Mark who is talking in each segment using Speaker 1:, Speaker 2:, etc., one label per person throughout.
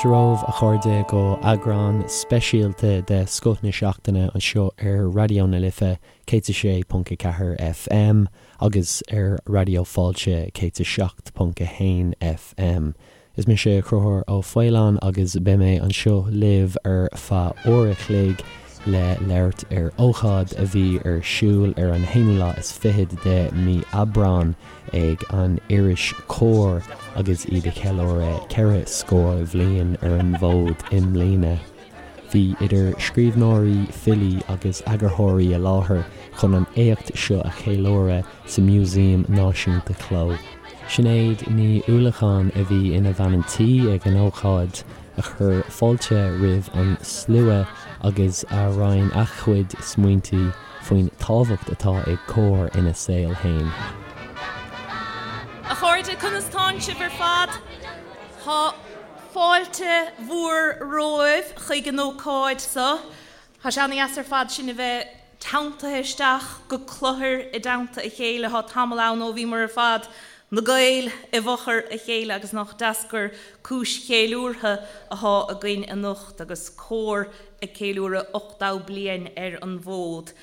Speaker 1: Fáilte romhaibh, a chairde, go eagrán speisialta de Scoth na Seachtaine anseo ar Raidió na Life 106.4 FM agus ar Raidió Fáilte 107.1 FM. Is mise Conchúr Ó Faoláin agus beidh mé anseo libh ar feadh uair a chloig le labhairt ar ócáid a bhí ar siúl ar an haonú lá is fichead de mí Aibreán ag an iris Comhar agus iad ag ceiliúradh 4 scór bhliain ar an bhfód i mbliana. Bhí idir scríbhneoirí, filí agus eagarthóirí i láthair chun an éacht seo a cheiliúradh sa Músaem Náisiúnta Cló. Sinéad Ní Uallacháin a bhí ina bhean an tí ag an ócáid, a chuir fáilte roimh an slua agus a roinn a cuid smaointe faoin tábhacht atá ag Comhar ina saol féin.
Speaker 2: A chairde, conas tánn sibh ar fad? Tá fáilte mhór romhaibh chuig an ócáid seo. Tá sé ana-dheas ar fad sinn a bheith teanntaithe isteach go cluthar i dteannta a chéile. Tá tamall ann ó bhíomar ar fad, na Gaeil, i bhfochair a chéile agus nach deas gur cúis cheiliúrtha athá againn anocht agus Comhar ag ceiliúradh 80 bliain ar an bhfód.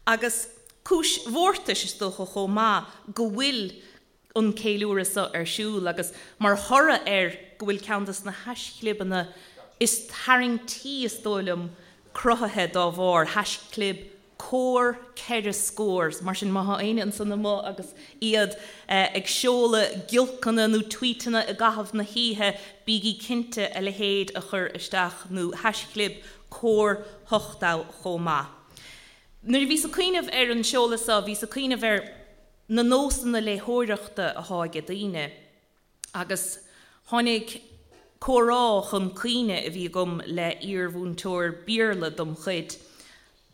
Speaker 2: Agus cúis mhórtais, is dócha, chomh maith go bhfuil an ceiliúradh seo ar siúl agus mar thoradh air go bhfuil ceann de na haischlibeanna is tarraingtí, is dóigh liom, cruthaithe dá bharr, haischlib Comhar 4 Scór. Mar sin, má thá éinne ansan amuigh agus iad ag seoladh giolcanna nó tweetanna i gcaitheamh na hoíche, bígí cinnte a leithéid a chur isteach, nó haischlib Comhar 80 chomh maith. Nuair a bhíos ag cuimhneamh ar an seoladh seo, bhíos ag cuimhneamh ar. na nósanna léitheoireachta athá aige daoine agus tháinig comhrá chun cuimhne a bhí agam le iar-mhúinteoir Béarla dom chuid.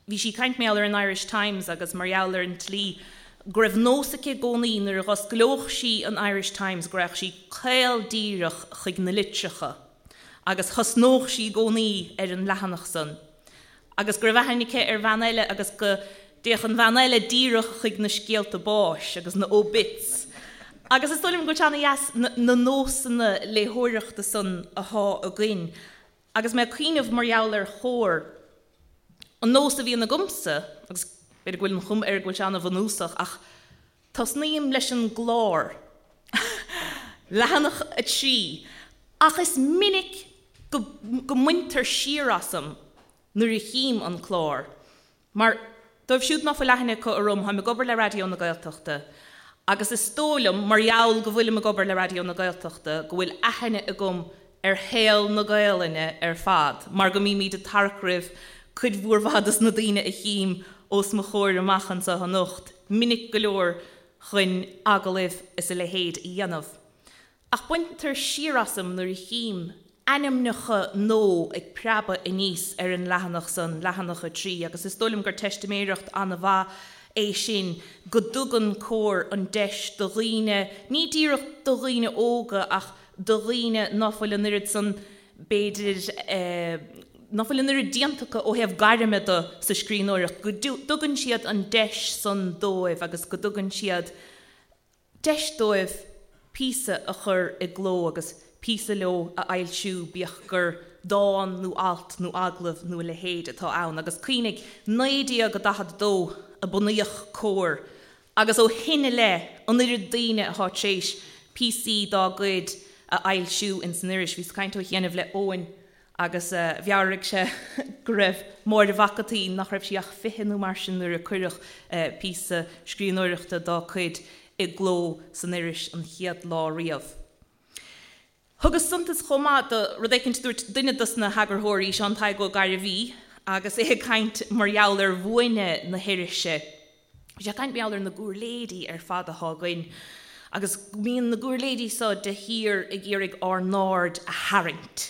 Speaker 2: Bhí sí ag caint mar gheall ar an Irish Times agus mar gheall ar an tslí go raibh nós aici i gcónaí nuair a dh'osclódh sí an Irish Times go raghadh sí caol díreach chuig na litreacha agus thosnódh sí i gcónaí ar an leathanach san. agus go raibh aithne aici ar bhean eile agus go dtéadh an bhean eile díreach chuig na scéalta báis agus na obits. Agus is dóigh liom go bhfuil sé ana-dheas na nósanna léitheoireachta san athá againn. Agus mé ag cuimhneamh mar gheall ar Chomhar, an nós a bhíonn agamsa, agus b'fhéidir go bhfuil an chuma air go bhfuil sé ana-bhunúsach, ach tosnaím leis an gclár, leathanach 3, ach is minic go go mbaintear siar asam nuair a chím an clár. Mar, dóibh siúd ná fuil aithne acu orm, táim ag obair le Raidió na Gaeltachta agus is dóigh liom, mar gheall go bhfuilim ag obair le Raidió na Gaeltachta, go bhfuil aithne agam ar shaol na Gaelainne ar fad, mar go mbímid ag tarrac roimh cuid mhór mhaith dos na daoine a chím os mo chomhair amach anseo anocht, minic go leor chun agallaimh is a leithéid a dhéanamh. Ach baintear siar asam nuair a chím ainmneacha nua ag preabadh aníos ar an leathanach san, leathanach 3, agus is dóigh liom gur teistiméireacht an-mhaith é sin go dtugann Comhar an deis do dhaoine, ní díreach do dhaoine óga ach do dhaoine ná fuil an oiread san, b'fhéidir, ná fuil an oiread déanta acu ó thaobh gairme de sa scríbhneoireacht, go dtugann siad an deis san dóibh agus go dtugann siad deis dóibh píosa a chur i gcló agus píosa leo a fhoilsiú, bíodh gur dán nó alt nó agallamh nó a leithéid atá ann. Agus cuimhnigh, 1942 a bunaíodh Comhar agus ó shin i leith, an oiread daoine atá tar éis píosaí dá gcuid a fhoilsiú ins an iris. Bhíos ag caint ó chianaibh le Eoin agus mheabhraigh sé go raibh Máire Mhac an tSaoi, nach raibh sí ach 20 nó mar sin nuair a cuireadh píosa scríbhneoireachta dá cuid i gcló san iris an chéad lá riamh. Thugas suntas chomh maith do rud éicint a dúirt duine dos na heagarthóirí, Seán Tadhg Ó Gairbhí, agus é ag caint mar gheall ar bhuaine na hirise. Bhí sé ag caint mar gheall ar na giúirléidí ar fad athá againn agus go mbíonn na giúirléidí so de shíor ag iarraidh ár n-aird a tharraingt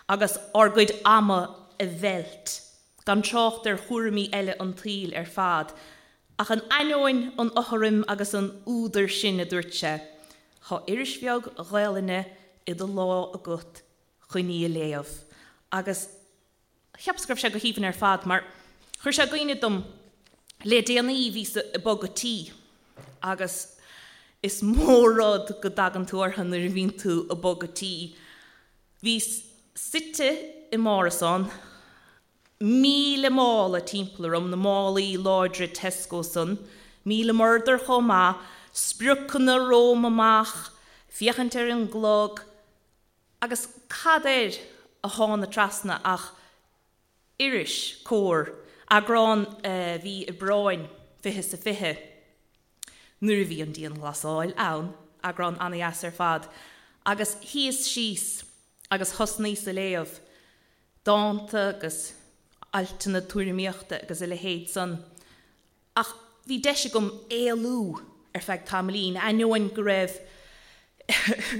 Speaker 2: agus ár gcuid ama a mheilt, gan trácht ar chúraimí eile an tsaoil ar fad. Ach in ainneoin an fhothraim agus an fhuadair sin, a dúirt sé, Tá iris bheag Ghaelainne i do lámh agat chun í a léamh. Agus cheapas go raibh sé go haoibhinn ar fad mar chuir sé i gcuimhne dom le déanaí bhíos ag bogadh tí agus is mór rud go dtagann tú orthu nuair a bhíonn tú ag bogadh tí. Bhíos. Suite i m'árasán, 1,000 mála timpeall orm, na málaí láidre Tesco san, 1,000 murdar chomh maith, spriocanna romham amach, féachaint ar an gclog, agus cad air a thána trasna ach iris, Comhar, eagrán mhí Aibreáin, fiche 's a fiche, nuair a bhí an dianghlasáil ann, eagrán ana-dheas ar fad, agus shuíos síos agus thosnaíos a léamh, dánta agus altanna tuairimíochta agus a leithéid san. Ach bhí deis agam éalú ar feadh tamaillín, ainneoin go raibh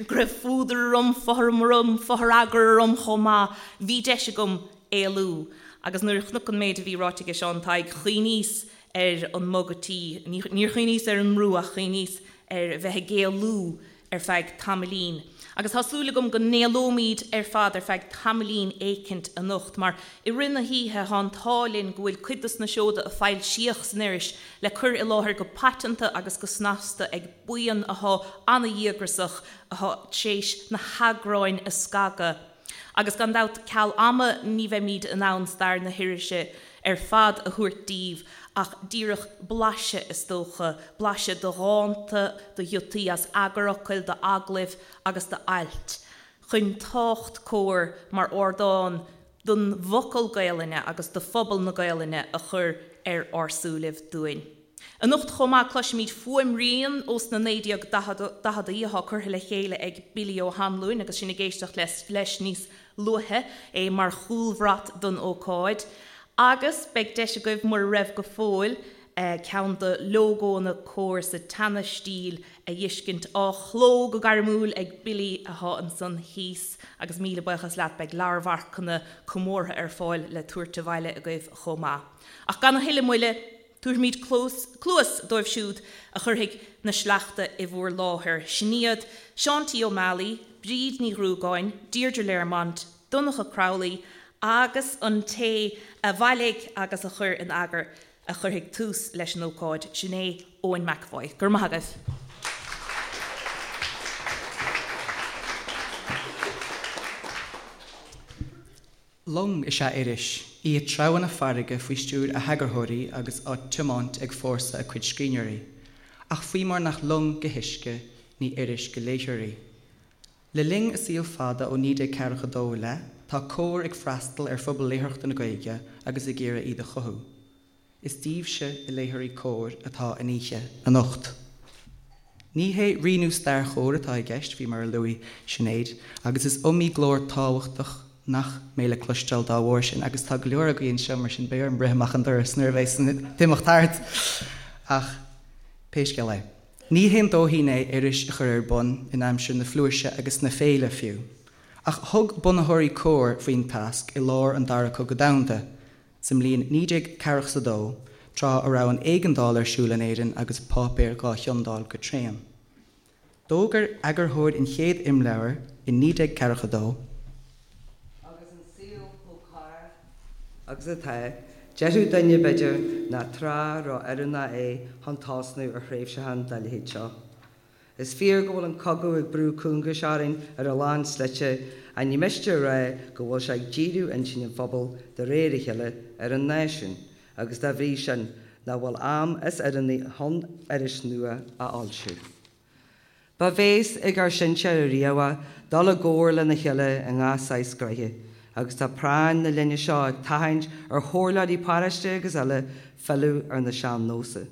Speaker 2: go raibh fuadar orm, fothram orm, fothragar orm chomh maith, bhí deis agam éalú. Agus nuair a chonac an méid a bhí ráite aige Seán Tadhg, chuimhníos ar an mbogadh tí, níor chuimhníos ar an mbrú ach chuimhníos ar bheith ag éalú ar feadh tamaillín. Agus tá súil agam go n-éalóimid ar fad ar feadh tamaillín éicint anocht, mar i rith na hoíche tá an t-ádh linn go bhfuil cuid dos na seoda a foilsíodh san iris le cur i láthair go paiteanta agus go snasta ag buíon athá ana-dhíograsach athá tréis na heagráin a scagadh. Agus gan dabht, ceal ama ní bheimid in ann stair na hirise ar fad a thabhairt daoibh ach díreach blaiseadh, is dócha, blaiseadh de dhánta, de ghiotaí as eagarfhocail, d'agallaimh agus d'ailt, chun tábhacht Comhar mar ardán don bhfocal Gaelainne agus do phobal na Gaelainne a chur ar ár súilibh dúinn. Anocht chomh maith cloisfimid fuaimrian ós na 1940idí atá curtha le chéile ag Billy Ó hAnluain agus sinn ag éisteacht leis níos luaithe, é mar chúlbhrat don ócáid. Agus beidh deis agaibh, mura raibh go fóill, ceann de lógónna Comhar sa tseana-stíl a fheiscint, á chló go gairmiúil ag Billy atá ansan thíos. Agus míle buíochas leat, beidh leabharmharcanna comórtha ar fáil le tabhairt abhaile agaibh chomh maith. Ach gan a thuilleadh moille, Tabharfaimid cluas dóibh siúd a chuirfidh na sleachta i bhúr láthair. Sin iad, Seán T. Ó Meallaigh, Bríd Ní Ghruagáin, Deirdre Learmont, Donncha Crowley agus an té a bhailigh agus a chuir in eagar a chuirfidh tús leis an ócáid, sin é Eoin McEvoy. Go raibh maith agaibh.
Speaker 3: Long is ea iris, í ag treabhadh na farraige faoi stiúir a heagarthóirí agus á tiomáint ag fórsa a cuid scríbhneoirí. Ach faoi mar nach long go huisce, ní iris go léitheoir í. Le linn a saoil fada ó 1942 i leith, tá Comhar ag freastal ar phobal léitheoireachta na Gaeilge agus ag iarraidh iad a chothú. Is daoibhse, a léitheoirí Comhar, atá an oíche anocht. Ní hé rianú stair Chomhar atá i gceist, faoi mar a luaigh Sinéad, agus is iomaí glór tábhachtach nach mbeidh le cloisteáil dá bharr sin, agus tá go leor agaibh anseo, mar sin beidh orm rith amach an doras nuair a bheas an t-imeacht thart! Ach pé scéal é, ní haon dóithín é iris a chur ar bun, in aimsir na flúirse agus na féile, fiú. Ach thug bunaitheoirí Comhar faoin tasc i lár an Dara Cogadh Domhanda, Sa mbliain 1942, tráth a raibh an éigeandáil ar siúl in Éirinn agus páipéir dhá chiondáil go tréan. D'fhógair eagarthóir an chéad imleabhair i 1942.
Speaker 4: Agus an saol chomh corrach agus atá, déarfadh duine, b'fhéidir, nach tráth ró-oiriúnach é chun tosnú ar thréimhseachán dá leithéid seo. Is fíor go bhfuil an cogadh ag brú cúngais orainn ar a lán slite, ach ní miste a rá go bhfuil sé ag díriú intinn an phobail de réir a chéile ar an náisiún, agus dá bhrí sin, nach bhfuil am is oiriúnaí chun iris nua a fhoilsiú. Ba bhéas ag ár sinsear ariamh dul i gcomhar lena chéile i ngach saghas gnoithe, agus tá práinn na linne seo ag tathant ar chomhairleoirí paróiste agus eile filleadh ar na sean-nósa.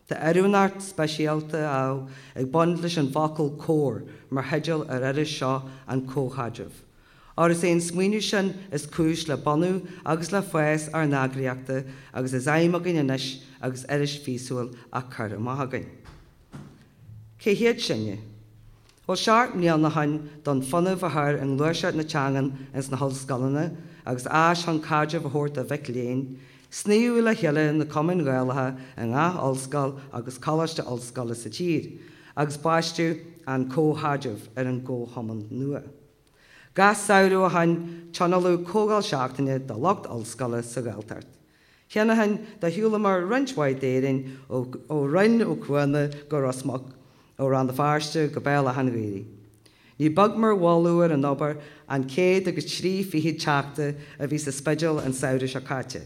Speaker 4: Tá oiriúnacht speisialta, ámh, ag baint leis an bhfocal 'comhar' mar theideal ar iris seo an Chomhchaidrimh. Óir is é an smaoineamh sin is cúis le bunú agus le fás ár n-eagraíochta agus is aidhm againn anois agus iris mhíosúil á cur amach againn. Cé hiad sinne? Bhuel, seacht mbliana ó shoin, d'fhonn fuinneamh a chur i ngluaiseacht na teangan ins na hollscoileanna agus áis chun caidreamh a thabhairt do mhic léinn, snoíodh le chéile na cumainn Ghaelacha i ngach ollscoil agus coláiste ollscoile sa tír, agus baisteadh An Comhchaidreamh ar an gcomhchumann nua. Gach samhradh ó shoin, tionóladh comhdháil seachtaine do lucht ollscoile sa Ghaeltacht. Cheana féin do shiúlamar roinnt mhaith d'Éirinn ó Rinn Ó Cuana go Ros Muc, ó Rann na Feirste go Béal Átha an Ghaorthaidh. Ní beag mar mholadh ar an obair an 123 teachta a bhí sa Spidéal an samhradh seo caite.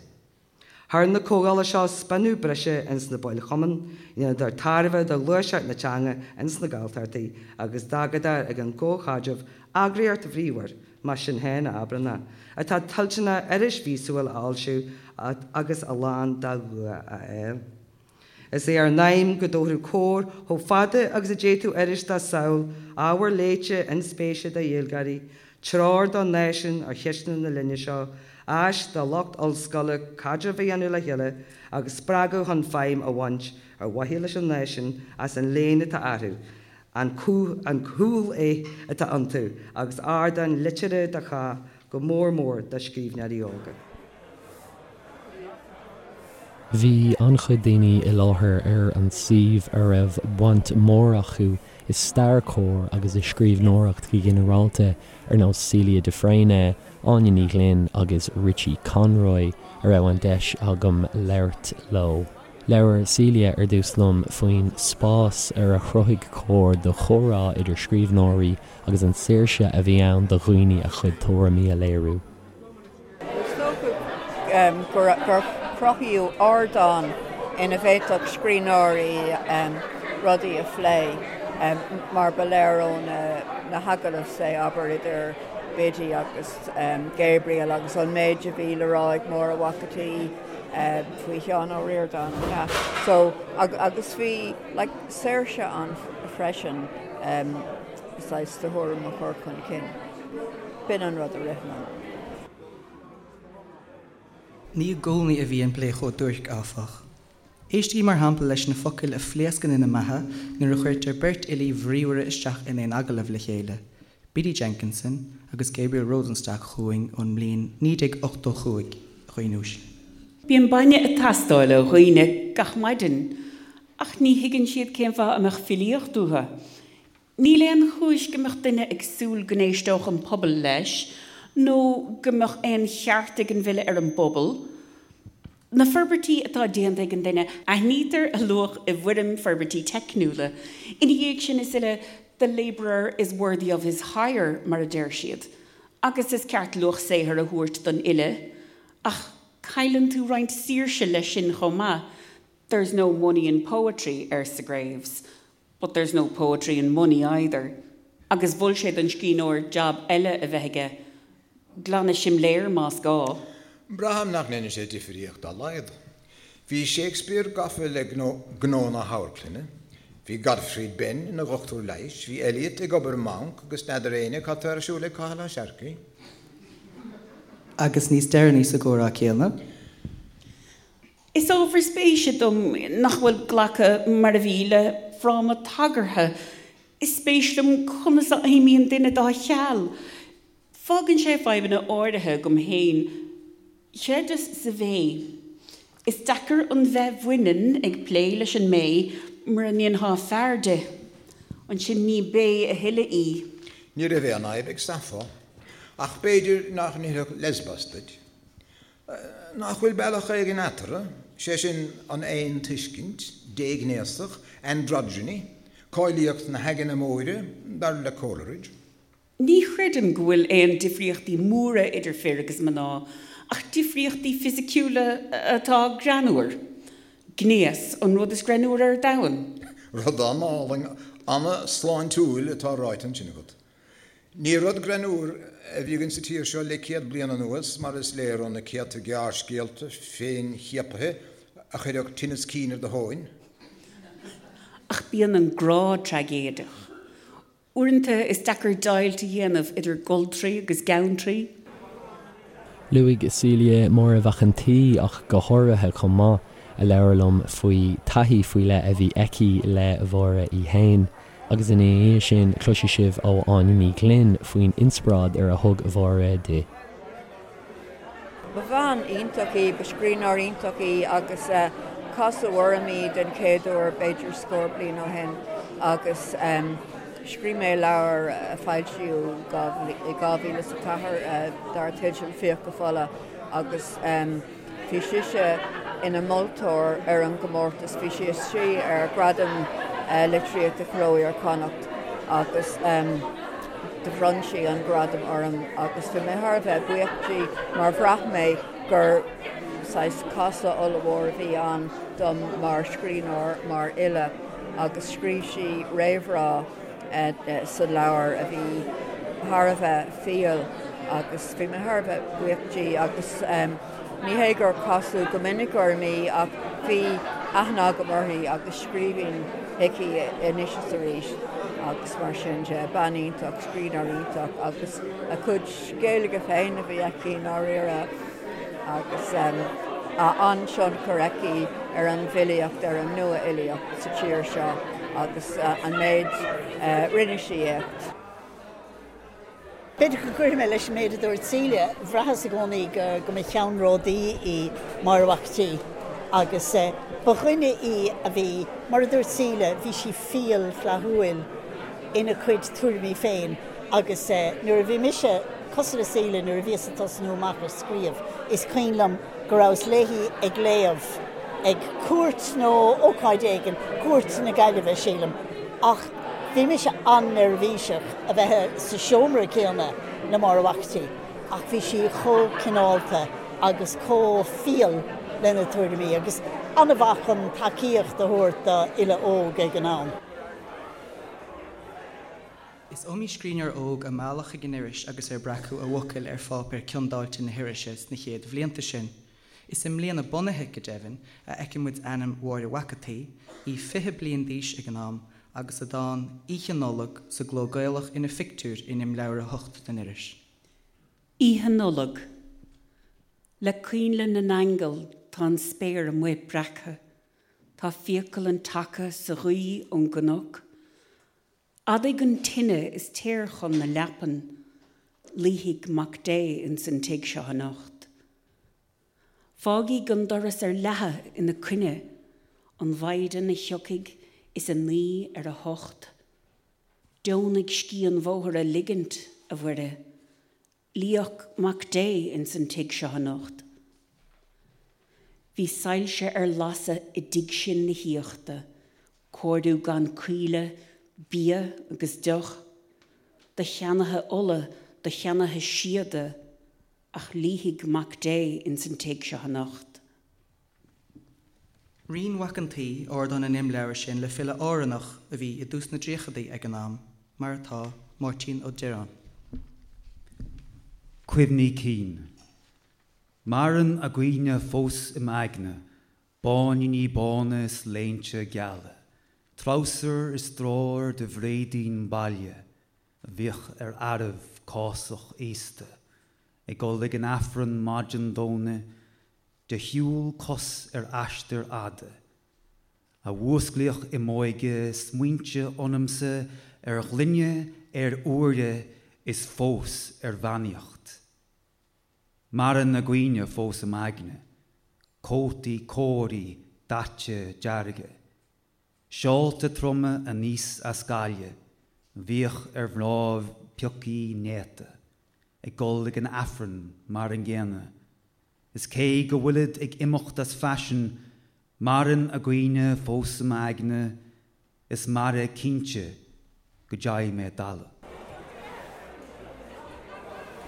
Speaker 4: Chuir na comhdhála seo spionnadh breise ins na baill chumainn, dheineadar tairbhe do ghluaiseacht na teanga ins na Gaeltachtaí agus d'fhágadar ag an gcomhchaidreamh eagraíocht bhríomhar, más sinn féin a abrann é, atá toilteanach iris mhíosúil a fhoilsiú agus a lán dá dhua a fháil. Is é ár n-aidhm go dtabharfadh Comhar chomh fada agus a d'fhéadfadh iris dá samhail, ábhar léite inspéise do Ghaeilgeoirí, treoir don náisiún ar cheisteanna na linne seo, áis do lucht ollscoile caidreamh a dhéanamh le chéile agus spreagadh chun feidhm a bhaint ar mhaithe leis an náisiún as an léann atá orthu, an cúl-aith atá iontu agus ardán liteartha do chách, go mór mór do scríbhneoirí óga.
Speaker 1: Bhí an-chuid daoine i láthair ar an suíomh a raibh baint mhór acu i stair Comhar agus i scríbhneoireacht go ginearálta, ar nós Celia de Fréine, Áine Ní Ghlinn agus Richie Conroy, a raibh an deis agam labhairt leo. Labhair Celia ar dtús liom faoin spás ar a chruthaigh Comhar do chomhrá idir scríbhneoirí agus an saoirse a bhí ann do dhaoine a chuid tuairimí a léiriú.
Speaker 5: Is dócha gur cruthaíodh ardán ina bhféadfadh scríbhneoirí rudaí a phlé, mar ba léir ó na hagallaimh, say, abair, idir Biddy agus Gabriel agus an méid a bhí le rá ag Máire Mhac an tSaoi faoi Sheán Ó Ríordáin, yeah. So, agus bhí, like, saoirse ann freisin saghas do thuairim a chur chun cinn. B'in an rud a rith liom.
Speaker 3: Ní i gcónaí a bhí an plé chomh duairc, áfach. Éistigí mar shampla leis na focail a phléascann ina mbeatha nuair a chuirtear beirt fhilí bhríomhara isteach in aon agallamh le chéile, Biddy Jenkinson agus Gabriel Rosenstock chugainn ón mbliain 1985, a dhaoine uaisle.
Speaker 6: Bíonn bainne ag teastáil ó dhaoine gach maidin, ach ní thuigeann siad cén fáth a mbeadh filíocht uathu. Níl aon chúis go mbeadh duine ag súil go n-éisteodh an pobal leis nó go mbeadh aon cheart ag an bhfile ar an bpobal. Na forbairtí atá déanta ag an duine, aithnítear a luach i bhfoirm forbairtí teicniúla. Ina dhiaidh sin is uile, the labourer is worthy of his hire, mar a deir siad. Agus is ceart luach saothair a thabhairt don fhile. Ach cailleann tú roinnt saoirse leis sin chomh maith. There's no money in poetry, arsa Graves. But there's no poetry in money either. Agus mhol sé don scríbhneoir jab eile a bheith aige, glanadh simléar más gá.
Speaker 7: Braithim nach ndéanann sé difríocht dá laghad. Bhí Shakespeare gafa le gnó na hamharclainne, bhí Gottfried Benn ina dhochtúir leighis, bhí Eliot ag obair i mbanc agus n'fheadar éinne cad tá ar siúl ag Cathal Ó Searcaigh.
Speaker 3: Agus níos deireanaí sa gcomhrá céanna.
Speaker 6: Is ábhar spéise dom nach bhfuil glacadh mar a bhí le fráma tagartha. Is spéis liom conas a fheidhmíonn duine dá cheal. Fágann sé fadhbanna áirithe agam féin. Chreideas sa bhé. Is deacair an bheith bhaineann ag plé leis an mbé mura ndéanfá fear di. Ansin ní bé a thuilleadh í.
Speaker 7: Ní raibh aon fhadhb ag Sappho. Ach b'fhéidir nach n-oirfeadh Lesbos duit. Nach bhfuil bealach éigin eatarthu, sé sin an aontuiscint, déghnéasach, androgyny, cáilíocht na haigne móire, dar le Coleridge?
Speaker 6: Ní chreidim go bhfuil aon difríochtaí móra idir fir agus mná, ach difríochtaí fisiciúla atá greannmhar. Gnéas, an rud is greannmhaire ar domhan.
Speaker 7: Rud an-álainn, an-sláintiúil atá ráite ansin agat. Ní rud greannmhar a bhí againn sa tír seo le 100 bliain anuas, mar is léir ó na céadta gearrscéalta féinchiapaithe a chuirfeadh tinneas cinn ar do thóin.
Speaker 6: Ach bíonn an grá traigéideach. Uaireanta is deacair deighilt a dhéanamh idir goltraí agus geantraí.
Speaker 1: Luaigh Celia, Máire Mhac an tSaoi ach go háirithe chomh maith, a labhair liom faoi taithí faoi leith a bhí aici le Máire í fhéin. Agus ina dhiaidh sin cloisfidh sibh ó Áine Ní Ghlinn faoin inspioráid ar a thug Máire di.
Speaker 5: Ba bhean iontach í, ba scríbhneoir iontach í agus casadh orm í den chéad uair b'fhéidir scór bliain ó shin agus scríobh mé leabhar a foilsíodh i 2004 dar teideal Fiacha Fola agus Bhí sise ina moltóir ar an gcomórtas, bhí sí istigh ar Ghradam Litríochta Chló Iar-Chonnacht agus. do bhronn sí an gradam orm agus bhí mé thar a bheith buíoch di mar bhraith mé gur saghas casadh ollmhór a bhí ann dom mar scríbhneoir, mar fhile agus scríobh sí réamhrá sa leabhar a bhí thar a bheith fial agus bhí mé thar a bheith buíoch di agus ní hé gur casadh go minic orm í ach bhí aithne agam uirthi agus scríobhaim chuici anois is arís agus mar sin de, bean iontach, scríbhneoir iontach agus a cuid Gaeilge féin a bhí aici i ndáiríre agus an-tionchar aici ar an bhfilíocht, ar an nua-fhilíocht sa tír seo agus an méid, rinne sí éacht.
Speaker 8: B'fhéidir go gcuirfidh mé leis an méid a dúirt Celia, bhraitheas i gcónaí go go mba cheannródaí í Máire Mhac an tSaoi agus ba dhuine í a bhí, mar a dúirt Celia, bhí sí fial flaithiúil ina cuid tuairimí féin agus nuair a bhí mise, cosúil le Celia, nuair a bhíos ag tosnú amach ag scríobh, is cuimhin liom go rabhas léi ag léamh ag cuairt nó ócáid éigin, cuairt na Gaillimhe, sílim, ach bhí mise an-neirbhíseach a bheith sa seomra céanna le Máire Mhac an tSaoi ach bhí sí chomh cineálta agus chomh fial lena tuairimí agus an-mhaith chun tacaíocht a thabhairt do fhile óg ag an am.
Speaker 3: Is iomaí scríbhneoir óg a mealladh chuig an iris agus ar breacadh a bhfocail ar pháipéar ciondáilte na hirise sna chéad bhlianta sin. Is i mbliain a bunaithe, go deimhin, a fheiceann muid ainm Mháire Mhac an tSaoi, í 20 bliain d'aois ag an am, agus a dán 'Oíche Nollag' sa gcló Gaelach ina phictiúr in imleabhar 8 den iris.
Speaker 6: Oíche Nollag. Le coinnle na n-aingeal tá an spéir amuigh breactha, tá fiacail an tseaca sa ghaoth ón gcnoc. Adaigh an tine is téir chun na leapan, luífidh Mac Dé ins an tigh seo anocht. Fágaigí an doras ar leathadh ina coinne, an mhaighdean a thiocfaidh is a naoi ar a hocht. Deonaigh scíth an bhóthair a ligint, a Mhuire, Luíodh Mac Dé ins an tigh seo anocht. Bhí soilse ar lasadh i dtigh sin na haíochta, cóiriú gan caoileadh, bia agus deoch, do cheannaithe ola, do cheannaithe síoda, ach luífidh Mac Dé ins an tigh seo anocht.
Speaker 3: Roinn Mhac an tSaoi ardán an imleabhair sin le file Árannach a bhí i dtús na dtríochadaí ag an am, mar atá, Máirtín Ó Direáin.
Speaker 9: Cuimhní cinn. Maireann a gcuimhne fós i m'aigne, báiníní bána is léinte geala, treabhsar is dráir de bhréidín baile a bhíodh ar fhearaibh cásach aosta, ag dul ag an Aifreann maidin Domhnaigh de shiúl cos ar aistear fhada, a mhúsclaíodh i m'óige smaointe ionamsa ar ghlinne, ar úire is fós ar bheannaíocht. Maireann a gcuimhne fós i m'aigne, cótaí cóirí daite dearga, Seálta troma aníos as Gaillimh, bhíodh ar mhnáibh piocaí néata, ag dul ag an Aifreann mar an gcéanna, is cé go bhfuilid ag imeacht as faisean, maireann a gcuimhne fós i m'aigne, is mairfidh cinnte go dteigh mé i dtalamh.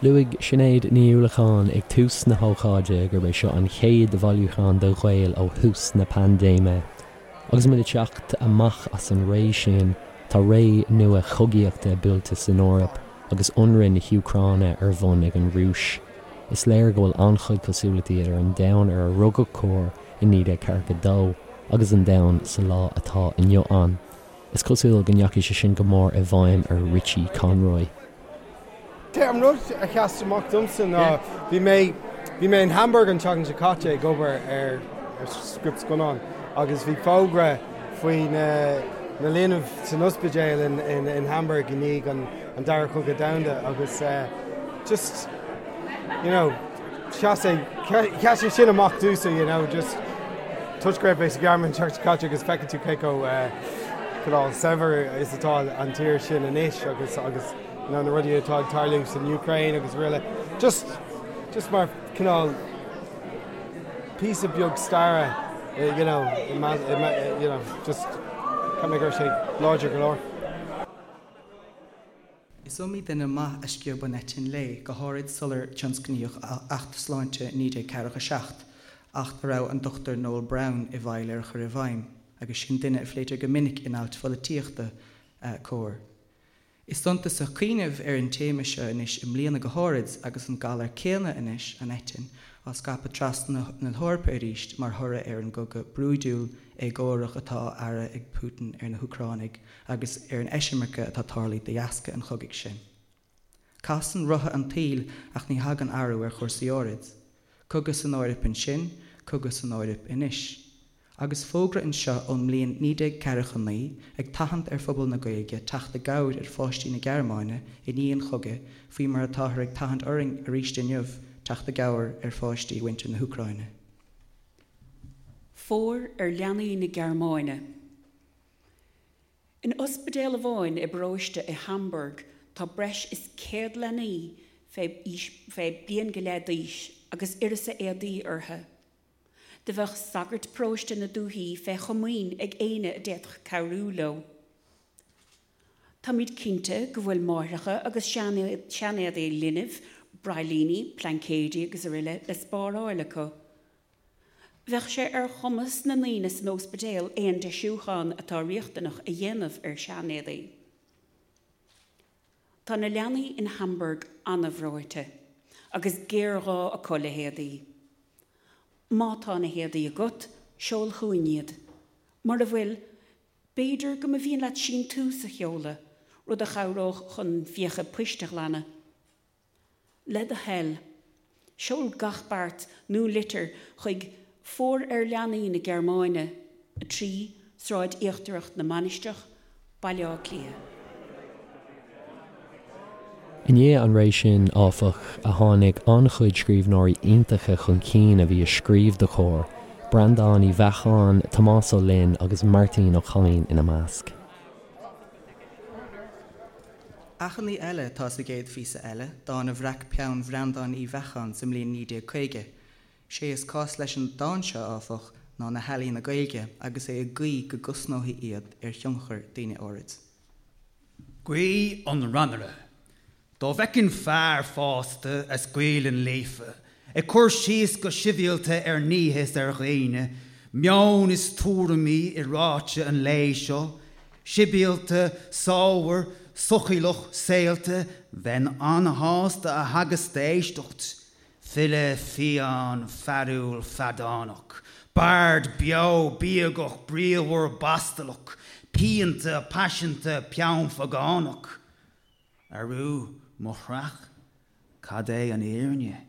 Speaker 1: Luaigh Sinéad Ní Uallacháin ag tús na hócáide gurb é seo an chéad bhailiúchán do Ghaeil ó thús na paindéime. Agus muid ag teacht amach as an ré sin, tá ré nua chogaíochta buailte san Eoraip agus ionradh na hÚcráine ar bun ag an Rúis. Is léir go bhfuil an-chuid cosúlachtaí idir an domhan ar a rugadh Comhar i 1942 agus an domhan sa lá atá inniu ann. Is cosúil go ndeachaigh sé sin go mór i bhfeidhm ar Richie Conroy.
Speaker 10: An rud a sheas amach domsa ná bhí mé bhí mé in Hamburg an tseachtain seo caite ag obair ar ar script scannáin agus bhí fógra faoi na na linbh san ospidéal in in in Hamburg i ndiaidh an an Dara Cogadh Domhanda agus just you know Sheas sé, sheas sé sin amach domhsa, you know, just toisc go raibh mé sa Ghearmáin an tseachtain seo caite agus feiceann tú cé chomh cineál saibhir is atá an tír sin anois agus agus you know, na rudaí atá ag tarlú san Úcráin agus araile. Just, just mar cineál píosa beag staire, you know, you know, just cheap mé go raibh sé láidir go leor.
Speaker 3: Is iomaí duine maith a sciob an eitinn léi, go háirid sular tionscnaíodh Acht Sláinte 1947, acht a raibh an Dr Noel Browne i bhfeighil ar a chur i bhfeidhm, agus sin duine a phléitear go minic in ailt pholaitíochta Comhar. Is suntasach cuimhneamh ar an téama seo anois i mbliana go háirid agus an galar céanna anois, an eitinn, á scaipeadh trasna na hEorpa arís mar thoradh ar an gcogadh brúidiúil, éagórach atá á fhearadh ag Putin ar na hÚcránaigh agus ar an eisimirce atá tarlaithe de dheasca an chogaidh sin. Casann rotha an tsaoil ach ní thagann athrú ar chúrsaí áirid. Cogadh san Eoraip ansin, cogadh san Eoraip anois. Agus fógra anseo ón mbliain 1949 ag tathant ar phobal na Gaeilge teacht i gcabhair ar pháistí na Gearmáine i ndiaidh an chogaidh faoi mar atáthar ag tathant orainn arís inniu teacht i gcabhair ar pháistí mhuintir na hÚcráine.
Speaker 6: Fóir ar leanaí na Gearmáine. In ospidéal amháin i bparóiste i Hamburg tá breis is 100 leanaí fé aois fé bliain go leith d'aois agus uireasa éadaí orthu. Do bheadh sagairt paróiste na dúthaí fé chomaoin ag éinne a d'fhéadfadh cabhrú leo. Táimid cinnte go bhfuil máithreacha agus seanéadaí linbh, braillíní, plaincéidí agus aroile le spáráil acu. Bheadh sé ar chumas na ndaoine san óspidéal aon deisiúchán atá riachtanach a dhéanamh ar seanéadaí. Tá na leanaí in Hamburg an-bhreoite agus géarghá acu le héadaí. Má tá na héadaí agat, seol chugainn iad. Mura bhfuil, b'fhéidir go mba mhian leat síntiús a sheoladh, rud a chabhródh chun fiacha poist a ghlanadh. Le do thoil, seol gach beart nó litir chuig Fóir ar Leanaí na Gearmáine, 3, Sráid Íochtarach na Mainistreach, Baile Átha Cliath.
Speaker 1: I ndiaidh an ré sin, áfach, a tháinig an-chuid scríbhneoirí iontacha chun cinn a bhí ag scríobh do Comhar, Breandán Uí Bheacháin, Tomás Ó Fhloinn agus Máirtín Ó Cadhain ina measc.
Speaker 3: Achainí eile atá sa gcéad phíosa eile, dán a bhreac peann Bhreandáin Uí Bheacháin sa mbliain 1950. Sé is cás leis an dán seo, áfach, ná na healaíona Gaeilge agus é ag guí go gcosnófaí iad ar thionchar daoine áirid.
Speaker 9: Guí an Rannaire. Dá bhfeicfinn fear fásta as Gaelainn líofa ag cur síos go sibhialta ar nithe is ar dhaoine, meon is tuairimí i ráite an lae seo, sibhialta, sámhar, sochiallach, saolta, bheinn an-shásta a theagasc d'éisteacht. File fiáin, fearúil, feadánach, bard beo, bíogach, bríomhar, bastalach, pianta, paiseanta, peannphagánach. Arú, mo chreach, cad é an fhírinne?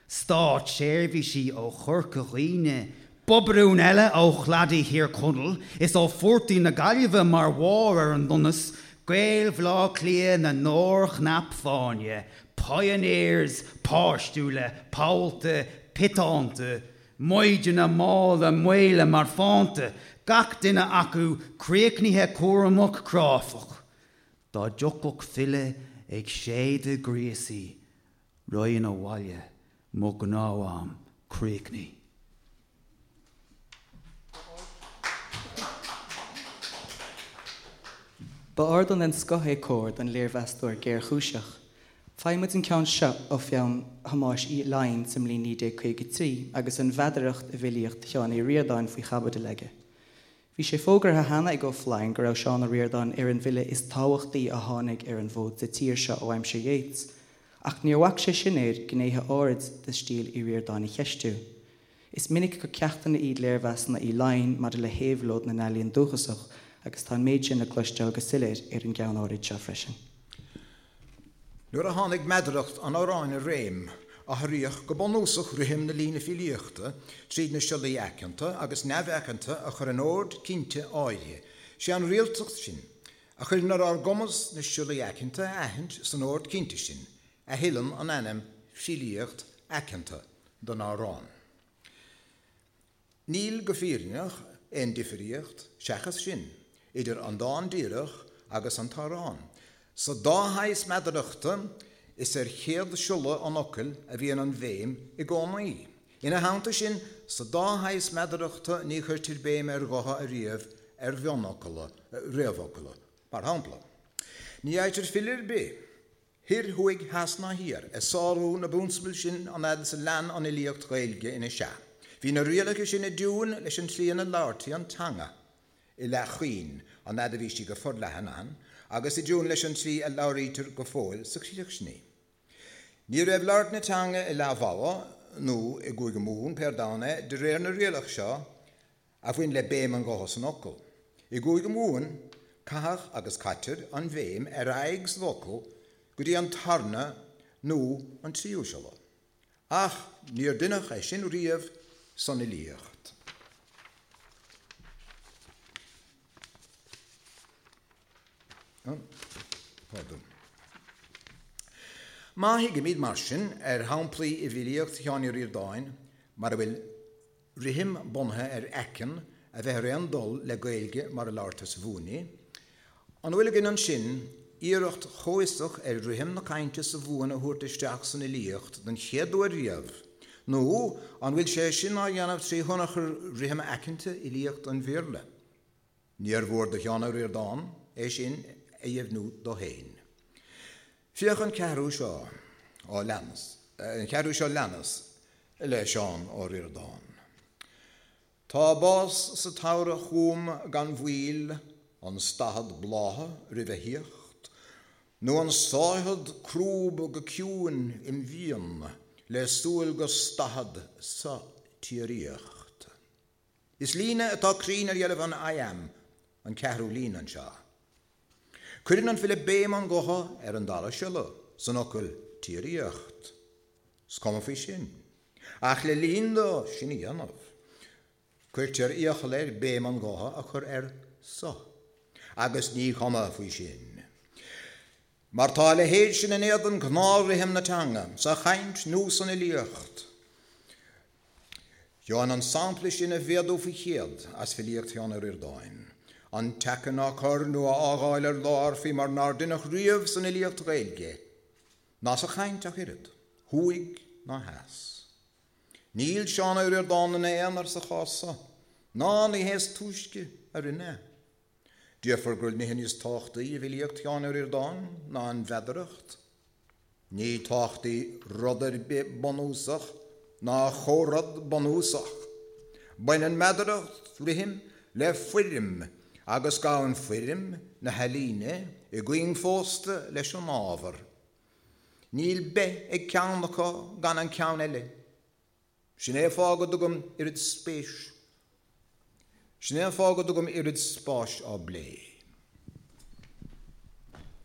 Speaker 9: Státseirbhísigh ó Chorca Dhuibhne, bobarún eile ó chladaí Thír Chonaill is ó phortaigh na Gaillimhe mar bharr ar an donas, Gaeil Bhaile Átha Cliath na ndorchnap fáinne, pioneers páistiúla, pollta, piotánta, maighdeana malla maola marfánta, gach duine acu críochnaithe cúramach cráifeach. Dá dtiocfadh file ag séideadh gríosaí, raghainn abhaile, mo ghnó-am críochnaithe.
Speaker 3: Ba ardán den scoth é Comhar don léirmheastóir géarchúiseach. Faigheann muid an ceann seo ó pheann Thomáis Uí Fhloinn sa mbliain 1953 agus an mheadaracht i bhfilíocht Sheáin Uí Ríordáin faoi chaibidil aige. Bhí sé fógartha cheana ag Ó Floinn go raibh Seán Ó Ríordáin ar an bhfile is tábhachtaí a tháinig ar an bhfód sa tír seo ó aimsir Yeats, ach níor bhac sé sin air gnéithe áirid de stíl Uí Ríordáin a cheistiú. Is minic gur ceachtanna iad léirmheasanna Uí Fhloinn maidir le héabhlóid na n-ealaíon dúchasach agus tá an méid sin le cloisteáil go soiléir ar an gceann áirid seo freisin.
Speaker 7: Nuair a tháinig meadaracht an amhráin i réim, athraíodh go bunúsach rithim na líne filíochta tríd na siollaí aiceanta agus neamhaiceanta a chur in ord cinnte áirithe. Sé an rialtacht sin, a chuireann ar ár gcumas na siollaí aiceanta a aithint san ord cinnte sin, a thuilleann an ainm 'filíocht aiceanta' don amhrán. Níl, go fírinneach, aon difríocht, seachas sin, idir an dán díreach agus an t-amhrán. Sa dá shaghas meadarachta, is ar chéad siolla an fhocail a bhíonn an bhéim i gcónaí. Ina theannta sin, sa dá shaghas meadarachta ní chuirtear béim ar ghutha ariamh ar mhionfhocla, réamhfhocla. Mar shampla, ní fhaightear file ar bith. Thoir, thuaidh, theas ná thiar, ag sárú na bprionsabal sin an fhad is a lean an fhilíocht Ghaeilge ina sea. Bhí na rialacha sin i dtiúin leis an tslí ina labhartaí an teanga i Leath Chaoin an fhad a bhí sí go forleathan ann agus i dtiúin leis an tslí a labhraítear go fóill sa Chríoch sin í. Ní raibh labhairt na teanga i Leath Mhogha nó i gCúige Mumhan, pé ar domhan é, de réir na rialach seo, a bhain le béim an ghutha san fhocal. I gCúige Mumhan, caitheadh agus caitear an bhéim ar aghaidh sa bhfocal go dtí an tarna nó an tríú siolla. Ach níor deineadh é sin riamh san fhilíocht. Má thigimid, mar sin, ar shamplaí i bhfilíocht Sheáin Uí Ríordáin mar a bhfuil rithim bunaithe ar aiceann a bheith ar aon dul le Gaeilge mar a labhartar sa Mhumhain í. An bhfuil againn ansin iarracht chomhfhiosach ar rithim na cainte sa Mhumhain a thabhairt isteach san fhilíocht don chéad uair riamh, nó an bhfuil sé sin á dhéanamh trí thionchar rithim aiceanta fhilíocht an Bhéarla? Níor mhór do Sheán Ó Ríordáin é sin a dheimhniú dó féin. Féach an ceathrú seo á leanas, an ceathrú seo leanas le Seán Ó Ríordáin. Tá bás sa tsamhradh chugam gan mhoill, an stathad blátha roimh a thíocht, nó an sáithead crúb go ciúin im mhian le súil go stathad sa tsíoraíocht. Is líne atá cruinn ar dheilbh an iamb an ceathrú líne anseo. Cuireann an file béim an ghutha ar an dara siolla san fhocal 'tsíoraíocht'. Is cuma faoi sin. Ach le linn dó sin a dhéanamh, cuirtear iachall air béim an ghutha a chur ar 'sa'. Agus ní cuma faoi sin. Mar tá a leithéid sin in éadan ghnáth-rithim na teanga, sa chaint nó san fhilíocht. Gheobhainn an sampla sin a mhéadú faoi chéad as filíocht Sheáin Uí Ríordáin. An t-aiceann á cur nó á fhágáil ar lár faoi mar nár deineadh riamh san fhilíocht Ghaeilge, ná sa chaint ach oiread, thuaidh ná theas. Níl Seán Ó Ríordáin ina aonar sa chás so, ná ní hé is túisce a rinne é. Déarfar go bhfuil nithe níos tábhachtaí i bhfilíocht Sheáin Uí Ríordáin ná an mheadaracht. Ní tábhachtaí rud ar bith bunúsach ná chomh rud bunúsach. Baineann meadaracht, rithim, le foirm agus gabhann foirm na healaíne i gcuing phósta leis an ábhar. Níl beith ag ceann acu gan an ceann eile. Sin é an fáth go dtugaim oiread spéis Sin é an fáth go dtugaim oiread spáis á bplé.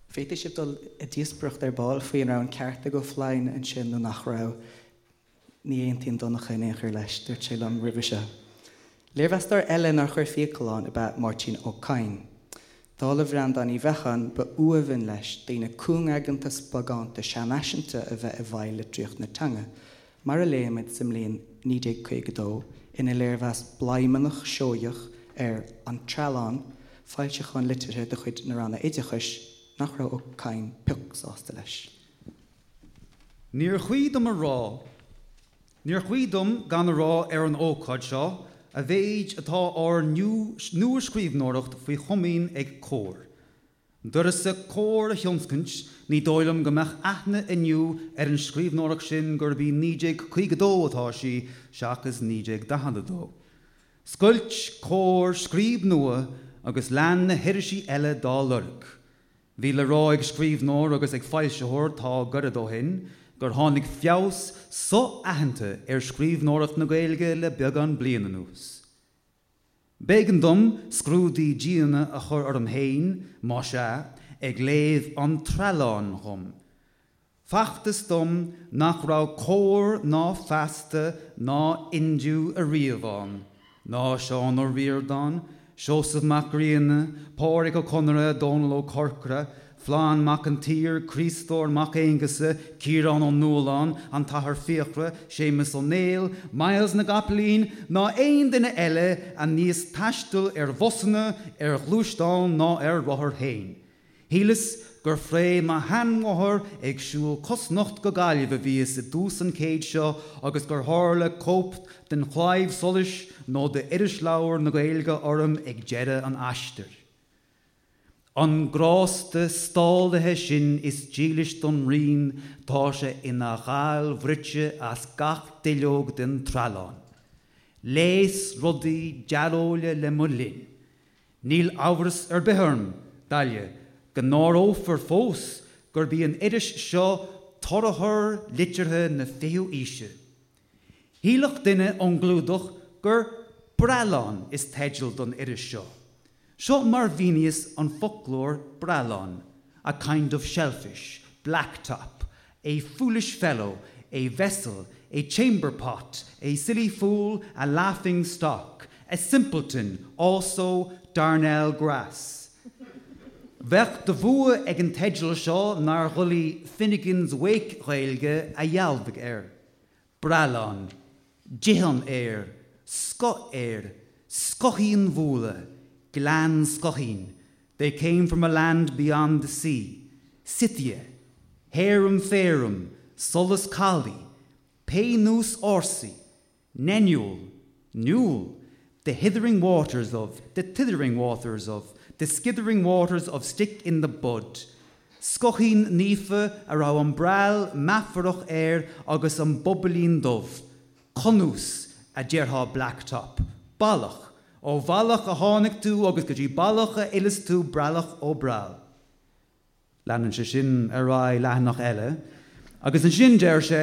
Speaker 3: Féadfaidh sibh dul i díospóireacht ar ball faoi an raibh an ceart ag Ó Floinn ansin nó nach raibh. Ní aontaíonn Donncha in aon chor leis, dúirt sé liom roimhe seo. Léirmheastóir eile nár chuir fiacail ann ab ea Máirtín Ó Cadhain. Dála Bhreandáin Uí Bheacháin, ba uamhan leis daoine cúngaigeanta spagánta seanfhaiseanta a bheith i bhfeighil litríocht na teanga, mar a léimid sa mbliain 1952 ina léirmheas bladhmannach seoigheach ar An Treallán, foilseachán liteartha de chuid na Ranna Oideachais, nach raibh Ó Cadhain pioc sásta leis.
Speaker 9: Níor chuí dom a rá, níor chuí dom gan a rá ar an ócáid seo a mhéid atá ár nua-scríbhneoireacht faoi chomaoin ag Comhar. D'uireasa Comhar a thionscaint, ní dóigh liom go mbeadh aithne inniu ar an scríbhneoireacht sin gurb í 1952 atá sí seachas 1942. Scoilt Comhar scríb nua agus lean na hirisí eile dá lorg. Bhí le rá ag scríbhneoir agus ag foilsitheoir tá gairid ó shin gur tháinig feabhas so-aitheanta ar scríbhneoireacht na Gaeilge le beagán bliain anuas. B'éigean dom scrúdaí diana a chur orm féin, más ea, ag léamh an Trealláin dhom. Facthas dom nach raibh Comhar ná Feasta ná Indiu ariamh ann, ná Seán Ó Ríordáin, Seosamh Mac Grianna, Pádraic Ó Conaire, Dónall Ó Corcora, Flann Mac an tSaoir, Críostóir Mac Aonghusa, Ciarán Ó Nualláin, an tAthair Fiachra, Séamus Ó Néill, Myles na gCopaleen, ná aon duine eile a níos taisteal ar bhusanna, ar ghluaisteáin ná ar rothair féin. Shíleas gur fré mo sheanmháthar ag siúl cosnocht go Gaillimh a bhíos i dtús an chéid seo agus gur tharla cóip den Chlaidheamh Soluis nó d'Irisleabhar na Gaeilge orm ag deireadh an aistir. An grásta stálaithe sin is dílis don rian, tá sé ina ghal bhruite as gach duilleog den treallán. Léas rudaí dearóile le mo linn. Níl amhras ar bith orm, Dalia, go n-áireofar fós gurb í an iris seo torathar liteartha na fichiú aoise. Shílfeadh duine ón gclúdach gur 'Breallán' is teideal don iris seo. Seo mar mhíníos an foclóir breallán, a kind of shellfish, blacktop, a foolish fellow, a vessel, a chamber pot, a silly fool, a laughing stock, a simpleton, also darnel grass. Bheadh de bhua ag an teideal seo nár dhoiligh Finnegans Wake Ghaeilge a dhealbhadh air. Breallán, Dith an aer, scoth aeir, scoithín bhualadh, Gleann Scoithín, they came from a land beyond the sea, Scythia, Héirim Féirim, solas calaidh, pé nós ársaí, Neniúil, Newell, the hithering waters of, the tithering waters of, the skithering waters of stick in the bud, Scoithín naofa a raibh an breall meafarach air agus an bobailín dubh, Cunús, a déarfá blacktop, ballach, ó bhallach a tháinig tú agus go dtí ballach a fhilleas tú breallach ó breall. Leanann sé sin ar aghaidh leathanach eile agus ansin deir sé,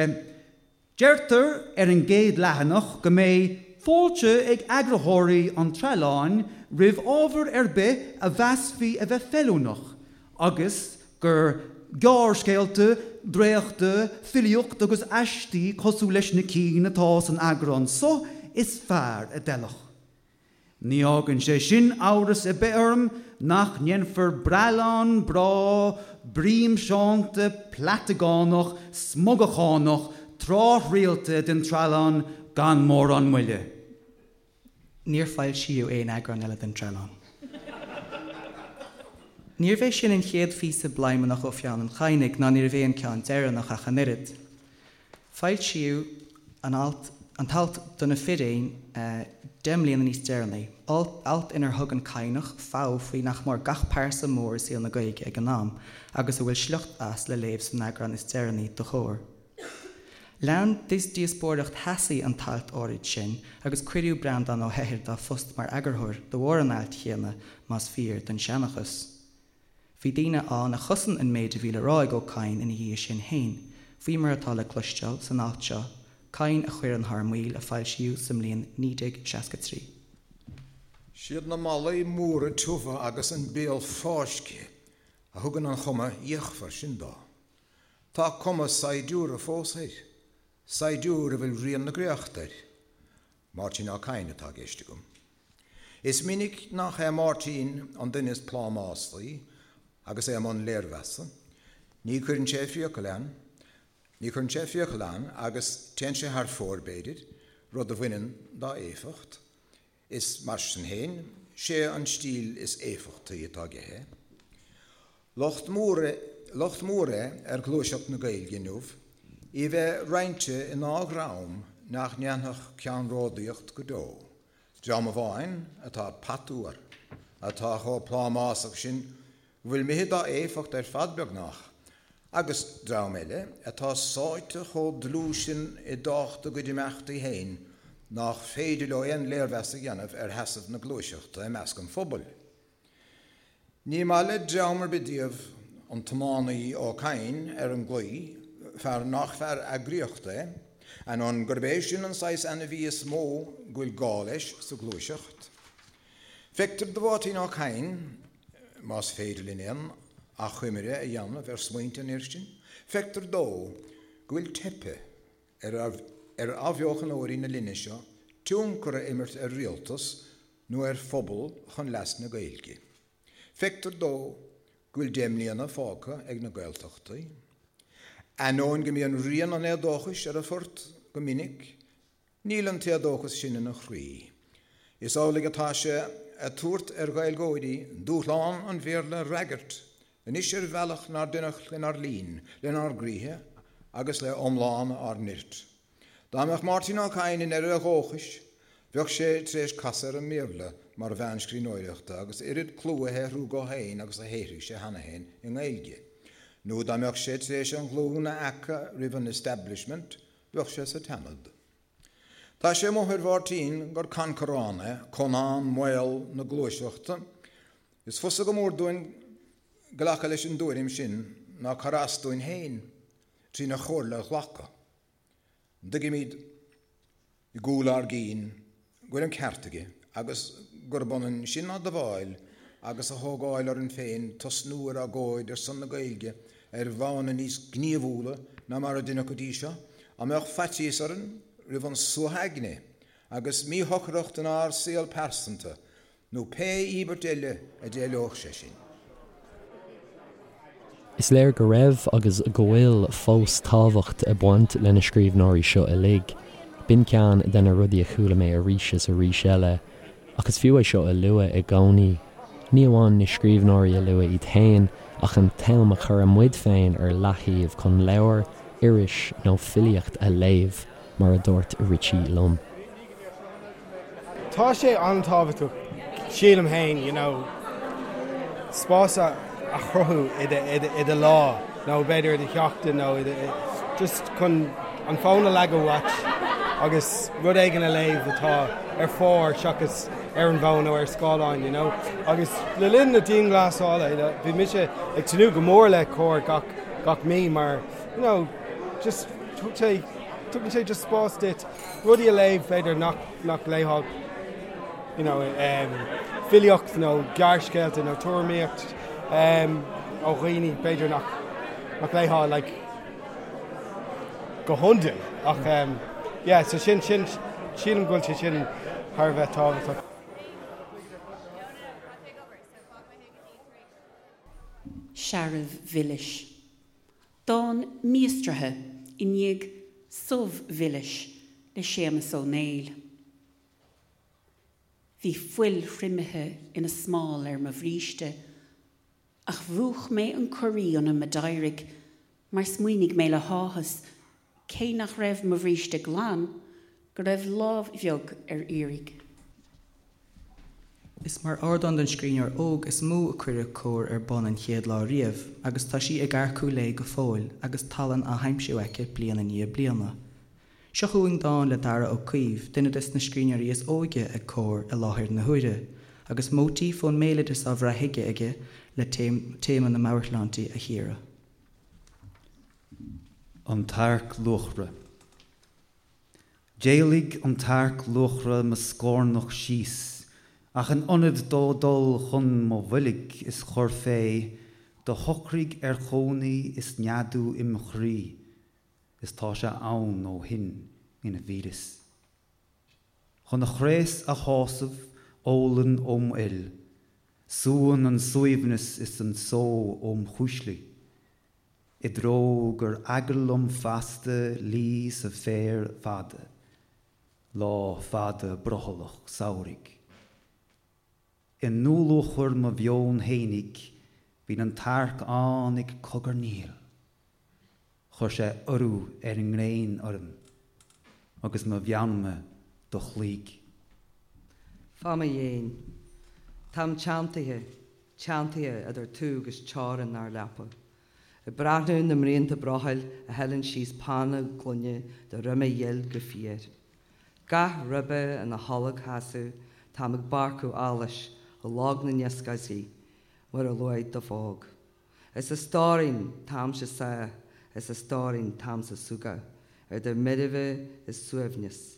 Speaker 9: Deirtear ar an gcéad leathanach go mbeidh fáilte ag eagraitheoirí an Trealláin roimh ábhar ar bith a mheasfaí a bheith feiliúnach agus gur gearrscéalta, dréachta, filíocht agus aistí cosúil leis na cinn atá san eagrán so is fearr a d'fheilfeadh. Ní fhágann sé sin amhras ar bith orm nach ndéanfar breallán breá bríomseánta plaitegánach smugachánach tráthrialta den Treallán gan mórán moille.
Speaker 3: Níor foilsíodh aon eagrán eile den Treallán. Níorbh é sin an chéad phíosa bladhmannach ó pheann an Chadhnaigh ná níorbh é an ceann deireanach ach an oiread. Foilsíodh an alt an t-alt 'Do na Firéin' 10 mbliana níos deireanaí, alt inar thug an Cadhnach fogha faoi nach mór gach pearsa mór i saol na Gaeilge ag an am, agus a bhfuil sliocht as le léamh san eagrán is deireanaí de Chomhar. Lean díospóireacht theasaí an t-alt áirid sin agus cuireadh Breandán Ó hEithir dá phost mar eagarthóir de bharr an ailt chéanna, más fíor don seanchas. Bhí daoine ann a chosain an méid a bhí le rá ag Ó Cadhain ina dhiaidh sin féin, faoi mar atá le cloisteáil san alt seo, Cadhain a Chuireann Thar Maoil a foilsíodh sa mbliain 1963.
Speaker 7: Siad na malaí móra tiubha agus an béal fáiscthe a thugann an chuma fhíochmhar sin dó. Tá cuma saighdiúra fós air, saighdiúir a bhfuil rian na gcréachta air. Máirtín Ó Cadhain atá i gceist agam. Is minic nach é Máirtín an duine is plámásaí agus é i mbun léirmheasa. Ní chuireann sé fiacail ann, ní chuireann sé fiacail ann agus téann sé thar fóir, b'fhéidir, rud a bhaineann dá éifeacht. Is mar sin féin, sé an stíl is éifeachtaí atá aige é. Locht mór é, locht mór é ar ghluaiseacht na Gaeilge inniu í a bheith roinnte i ndá dhream nach ndéanfadh ceannródaíocht go deo, dream amháin atá patuar, atá chomh plámásach sin go bhfuil imithe dá éifeacht ar fad beagnach, agus dream eile atá sáite chomh dlúth sin i dtábhacht a gcuid imeachtaí féin nach féidir leo aon léirmheas a dhéanamh ar sheasamh na gluaiseachta i measc an phobail. Ní maith le dream ar bith díobh an tiománaí Ó Cadhain ar an gclaí, fear nach fear eagraíochta é, ainneoin gurb é sin an saghas ainmhí is mó go bhfuil gá leis sa ghluaiseacht. Feictear do Mháirtín Ó Cadhain, más féidir linn aon achoimre a dhéanamh ar smaointe an fhir sin, feictear dó go bhfuil teipthe ar ar athbheochanóirí na linne seo tionchar a imirt ar rialtas nó ar phobal chun leas na Gaeilge. Feictear dó go bhfuil 10 mbliana fágtha ag na Gaeltachtaí. Ainneoin go mbíonn rian an éadóchais ar a phort go minic, Níl an t-éadóchas sin ina chroí. Is amhlaidh atá sé ag tabhairt ar Ghaeilgeoirí dúshlán an Bhéarla a fhreagairt anois ar bhealach nár deineadh lenár linn, lenár gcroíthe agus le iomlán ár nirt. Dá mbeadh Máirtín Ó Cadhain i ndeireadh a dhóchais, Bheadh sé tar éis casadh ar an mBéarla mar mheán scríbhneoireachta agus oiread clú a shaothrú dhó féin agus a shaothraigh sé cheana féin i nGaeilge. Nó dá mbeadh sé tar éis an ghlúin a fheacadh roimh an establishment, bheadh sé sa tSeanad. Tá sé amuigh ar Mháirtín gur cancarán é, Conán Maol na gluaiseachta. Is fusa go mór dúinn glacadh leis an dtuairim sin ná cur as dúinn féin trína chomhairle a ghlacadh. An dtuigimid i gcúl ár gcinn go bhfuil an ceart aige agus gurb ionann sin a admháil agus a thógáil orainn féin tosnú ar agóid ar son na Gaeilge ar mhodhanna níos gníomhúla ná mar a deineadh go dtí seo? An mbeadh faitíos orainn roimh an suathadh aigne agus míshocracht inár saol pearsanta nó pé íobairt eile a d'éileodh sé sin.
Speaker 1: Is léir go raibh agus go bhfuil fós tábhacht ag baint le na scríbhneoirí seo uilig. B'in ceann de na rudaí a chuala mé arís is arís eile, ach is fiú é seo a lua i gcónaí. Ní amháin na scríbhneoirí a lua iad féin, ach an t-am a chuireann muid féin ar leaththaobh chun leabhar, iris nó filíocht a léamh, mar a dúirt Richie liom.
Speaker 10: Tá sé an-tábhachtach, sílim féin, you know, spás a chruthú i do lá nó b'fhéidir i do sheachtain nó i do, just chun an fón a leagadh uait agus rud éigin a léamh atá ar phár seachas ar an bhfón nó ar scáileán, you know. Agus le linn na dianghlasála, you know, bhí mise ag tnúth go mór le Comhar gach, gach mí mar, you know, just thug sé, tugann sé just spás duit rudaí a léamh b'fhéidir nach nach léifeá you know filíocht nó gearrscéalta nó tuairimíocht ó dhaoine b'fhéidir nach nach léifeá like go hiondúil ach yeah so sin sin sílim go bhfuil sé sin thar a bheith tábhachtach.
Speaker 6: Searbh mhilis. Dán míostraithe i ndiaidh Subh Mhilis le Séamus Ó Néill. Bhí fuil thriomaithe ina smál ar mo bhríste, ach mhúch mé an corraí ionam a d'éirigh mar smaoinigh mé le háthas, cé nach raibh mo bhríste glan, go raibh lámh bheag ar iarraidh.
Speaker 3: Is mar ardán don scríbhneoir óg is mó a cuireadh Comhar ar bun an chéad lá riamh agus tá sí ag earcú léi go fóill agus tallann á haimsiú aici bliain i ndiaidh bliana. Seo chugainn dán le Daragh Ó Caoimh, duine des na scríbhneoirí is óige ag Comhar i láthair na huaire, agus móitíf ón mbéaloideas á bhrath chuige aige le téama na meabhairshláinte a chíoradh.
Speaker 9: An tArc Luachra. D'éalaigh an t-earc luachra mo scornach síos, ach in ionad dó dul chun mo bhoilg is chur fé, do shocraigh ar chónaí is neadú im chroí, is tá sé ann ó shin ina mhíleas. Chun a chraos a shásamh, ólann óm fhuil, súann an suaimhneas is an só óm chuislí. I dtreo gur eagal liom feasta luí sa bhféar fada, lá fada brothallach samhraidh. I ndúluachair mo mheoin fhéinig bíonn an t-earc ann ag cogarnaíl. Chuir sé urú ar an ngréin orm agus mo mheanma do chloígh.
Speaker 4: Fá mo dhéin. Táim teanntaithe, teanntaithe idir tú agus teorainn ár leapa. Ag breathnú na mbraonta brothaill a shileann síos pána gloine do dhroime dhil go fiar. Gach ribe ina tholgsheasamh, táim ag bárcadh allais i log na n-ioscáidí mar a luaigh do phóg. Is a stóirín, táimse sáth, is a stóirín, táimse súgach, idir meirbhe is suaimhneas,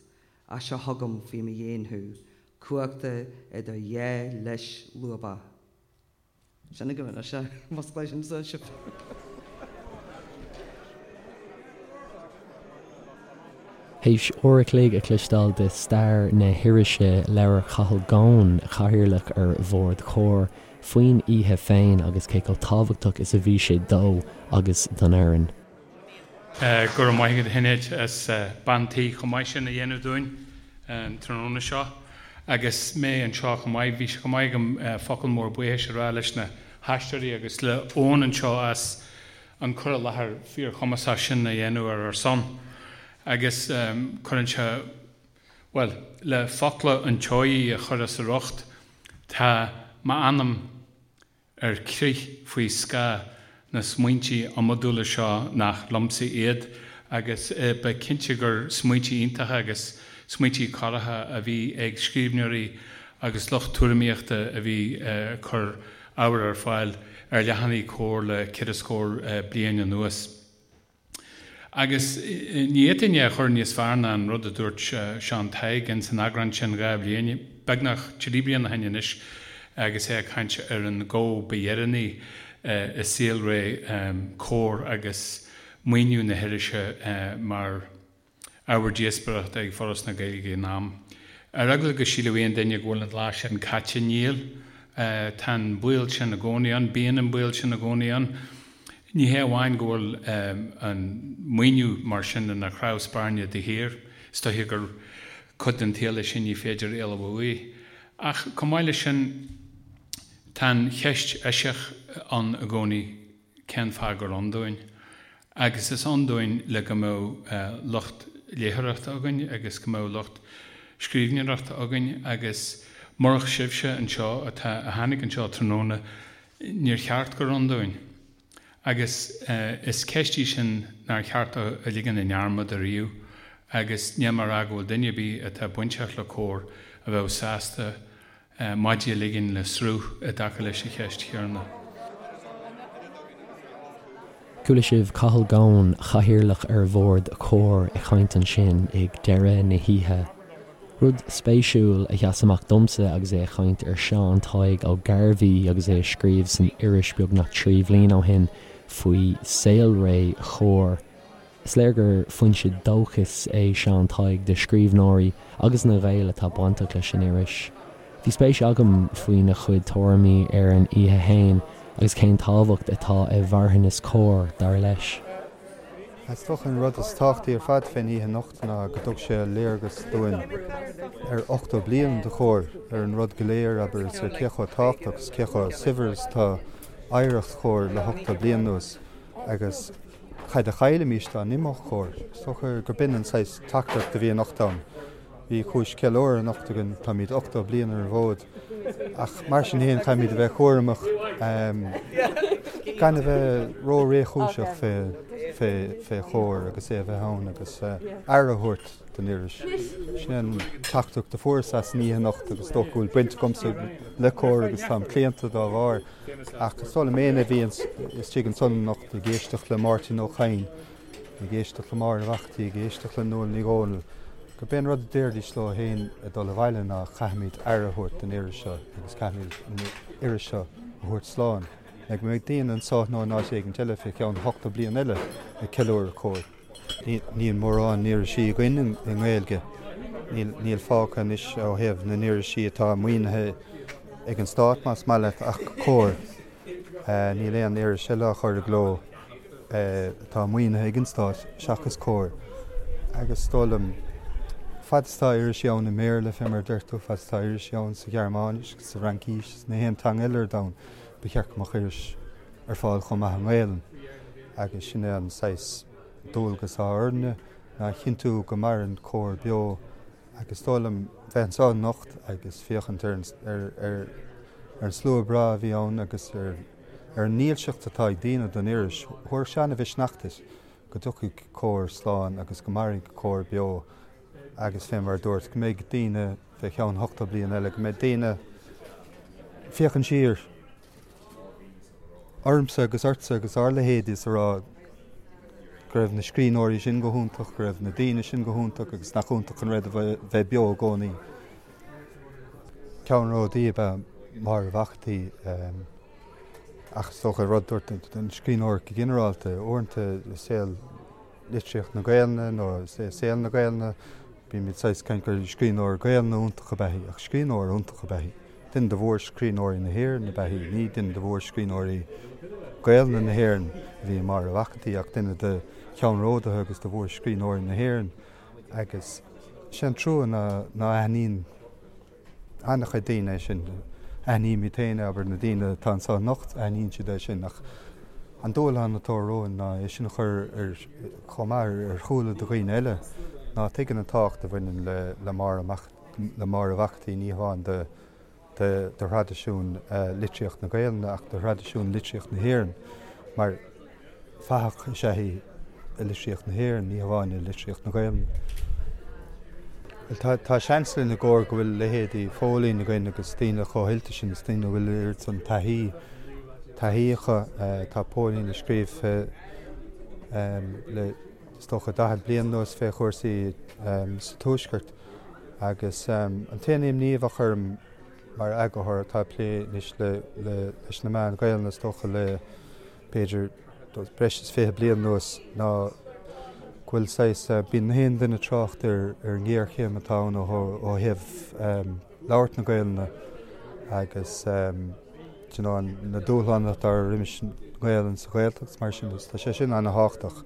Speaker 4: ach seo chugam faoi mo dhéin thú, cuachta idir dhá lios lúbach. Sin agaibh anois é, musclaigh sin sa sibh.
Speaker 1: Théis uair a chloig a chloisteáil de stair na hirise, labhair Cathal Goan, Cathaoirleach ar Bhord Chomhar, faoin oíche féin agus cé chomh tábhachtach is a bhí sé dó agus don fhoireann.
Speaker 11: Go raibh maith agat a Shinéad as bean tí chomh maith sin a dhéanamh dúinn an tráthnóna seo. Agus mé anseo chomh maith, bhí sé chomh maith agam focal mór buíochais a rá leis na haisteoirí agus le Eoin anseo as an cur i láthair fíorchumasach sin a dhéanamh ar ár son. Agus cuireann sé. Bhuel, le focla an tSeoighigh a chur as a riocht, tá m'anam ar crith faoi scáth na smaointe iomadúla seo nach liomsa iad agus ba cinnte gur smaointe iontacha agus smaointe corraitheacha a bhí ag scríbhneoirí agus lucht tuairimíochta a bhí ag cur ábhar ar fáil ar leathanaigh Comhar le ceithre scór bliain anuas. Agus ní fhéadfainn é a chur níos fearr ná an rud a dúirt Seán Tadhg ins an eagrán sin 2 bhliain, beagnach 3 bliana ó shin anois, agus é ag caint ar an gó ba dheireanaí i saolré Comhar agus maoiniú na hirise mar ábhar díospóireachta ag Foras na Gaeilge ag an am. Ar eagla go sílfeadh aon duine go bhfuil an lá sin caite, níl. Tá an baol sin i gcónaí ann, bíonn an baol sin i gcónaí ann. Ní hé amháin go bhfuil an maoiniú mar sin ina chnámh spairne de shíor, is dóiche gur cuid den tsaol é sin ní féidir éalú uaidh, ach chomh maith leis sin tá an cheist eisiach ann i gcónaí, cén fáth gur ann dúinn? Agus is ann dúinn le go mbeadh lucht léitheoireachta againn agus go mbeadh lucht scríbhneoireachta againn agus murach sibhse anseo atá, a tháinig anseo tráthnóna, níor cheart gur ann dúinn. Agus is ceist í sin nár cheart a ligean i ndearmad ariamh agus níl mé ag rá go bhfuil duine ar bith atá bainteach le Comhar a bheadh sásta maidí a ligean le sruth i dtaca leis an cheist chéanna.
Speaker 1: Chuala sibh Cathal Goan, Cathaoirleach ar Bhord Comhar ag caint ansin ag deireadh na hoíche. Rud spéisiúil a sheas amach domsa agus é ag caint ar Seán Tadhg Ó Gairbhí agus é ag scríobh san iris beagnach 3 bhliain ó shin faoi saolré Chomhar. Is léir gur foinse dóchais é Seán Tadhg do scríbhneoirí agus na Gaeil atá bainteach leis an iris. Bhí spéis agam faoina chuid tuairimí ar an oíche fhéin agus cén tábhacht atá i marthanas Comhar, dar leis.
Speaker 12: Is dócha an rud is tábhachtaí ar fad fén oíche anocht ná go dtug sé léargas dúinn ar 80 bliain de Chomhar, ar an rud go léir, abair, is ar cé chomh tábhachtach is cé chomh saibhir is atá oidhreacht Chomhar le hochtó bliain anuas agus Cad a chaillfimís dá n-imeodh Comhar? Is dócha gur b'in an saghas teachtaireacht a bhí anocht ann. Bhí cúis ceiliúradh anocht againn, táimid 80 bliain ar an bhfód, ach mar sin féin caithfimid a bheith cúramach gan a bheith ró-réchúiseach fé Chomhar agus é a bheith ann agus aire a thabhairt don iris. Sin é an teachtaireacht a fuaireas as an oíche anocht agus is dócha go bhfuil baint agamsa le Comhar agus táim claonta dá bharr. Ach is dóigh liom éinne a bhí istigh ansan anocht ag éisteacht le Máirtín Ó Cadhain, ag éisteacht le Máire Mhac an tSaoi, ag éisteacht le Nuala Ní Dhomhnaill, gurb é an rud a déarfaidís leo féin ag dul abhaile ná caithfimid aire a thabhairt don iris seo agus caithfimid an iris seo a thabhairt slán le go mbeidh daoine anso nó in áit éigint eile fé cheann ochtó bliain eile ag ceiliúradh Comhar. Níl mórán irisí againn i nGaeilge. Níl fágtha anois ó thaobh na n-irisí atá maoinithe ag an stát, más maith leat, ach Comhar. Níl aon iris eile á chur i gcló atá maoinithe ag an stát seachas Comhar. Agus is dóigh liom, fad is atá irisí ann i mBéarla, fé mar a deir tú, fad is atá irisí ann sa Ghearmáinis agus sa Fhraincis is na haon teanga eile ar domhan, ba cheart go mbeadh iris ar fáil chomh maith i nGaelainn. Agus sin é an saghas dualgas atá orainne, ná a chinntiú go maireann Comhar beo agus is dóigh liom bheith anseo anocht agus féachaint ar ar an slua breá a bhí ann agus ar ar an ndílseacht atá ag daoine don iris, thabharfadh sé an-mhisneach duit go dtiocfaidh Comhar slán agus go mairfidh Comhar beo agus fé mar a dúirt, go mbeidh daoine fé cheann ochtó bliain eile, go mbeidh daoine féachaint siar. ormsa agus ortsa agus ár leithéidí is a rá go raibh na scríbhneoirí sin go hiontach, go raibh na daoine sin go hiontach agus nach iontach an rud a bheith beo i gcónaí. Ceannródaí ab ea Máire Mhac an tSaoi ach is dócha rud dúirt an scríbhneoir go ginearálta, uaireanta i saol litríocht na Gaelainne nó i saol na Gaelainne bímid saghas caint gur scríbhneoir Gaelainne iontach ab ea í ach scríbhneoir iontach ab ea í. Duine de mhórscríbhneoirí na hÉireann ab ea í. Ní duine de mhórscríbhneoirí Gaelainne na hÉireann a bhí i Máire Mhac an tSaoi ach duine de cheannródaithe agus de mhórscríbhneoirí na hÉireann. Agus sé an trua ná ná aithníonn an-chuid daoine é sin. Aithnímid féin é, abair, na daoine atá anseo anocht, aithníonn siad é sin ach an dúshlán atá romhainn ná é sin a chur ar chomh maith ar shúile do dhaoine eile. ná tuigeann an tábhacht a bhaineann le Máire Mac le Máire Mhac an tSaoi ní hamháin do do thraidisiún litríocht na Gaelainne ach do thraidisiún litríocht na hÉireann mar fathach is ea í i litríocht na hÉireann, ní hamháin i litríocht na Gaelainne. Bhuel, tá seans linn i gComhar go bhfuil leithéidí Phóilín againn agus daoine chomh hoilte sin, is daoine a bhfuil oiread san taithí, taithí acu. Tá Póilín ag scríobh fé le, is dócha, 40 bliain anuas fé chúrsaí sa Tuaisceart agus an t-aon imní a bheadh orm mar eagarthóir atá ag plé anois le, leis na meáin Ghaelainne is dócha le b'fhéidir breis is 20 bliain anuas ná go bhfuil saghas, bíonn na haon duine ag trácht ar an ngéarchéim atá ann ó thaobh labhairt na Gaelainne agus you know na dúshláin atá roimis an nGaelainn sa Ghaeltacht is mar sin de. Tá sé sin ana-thábhachtach,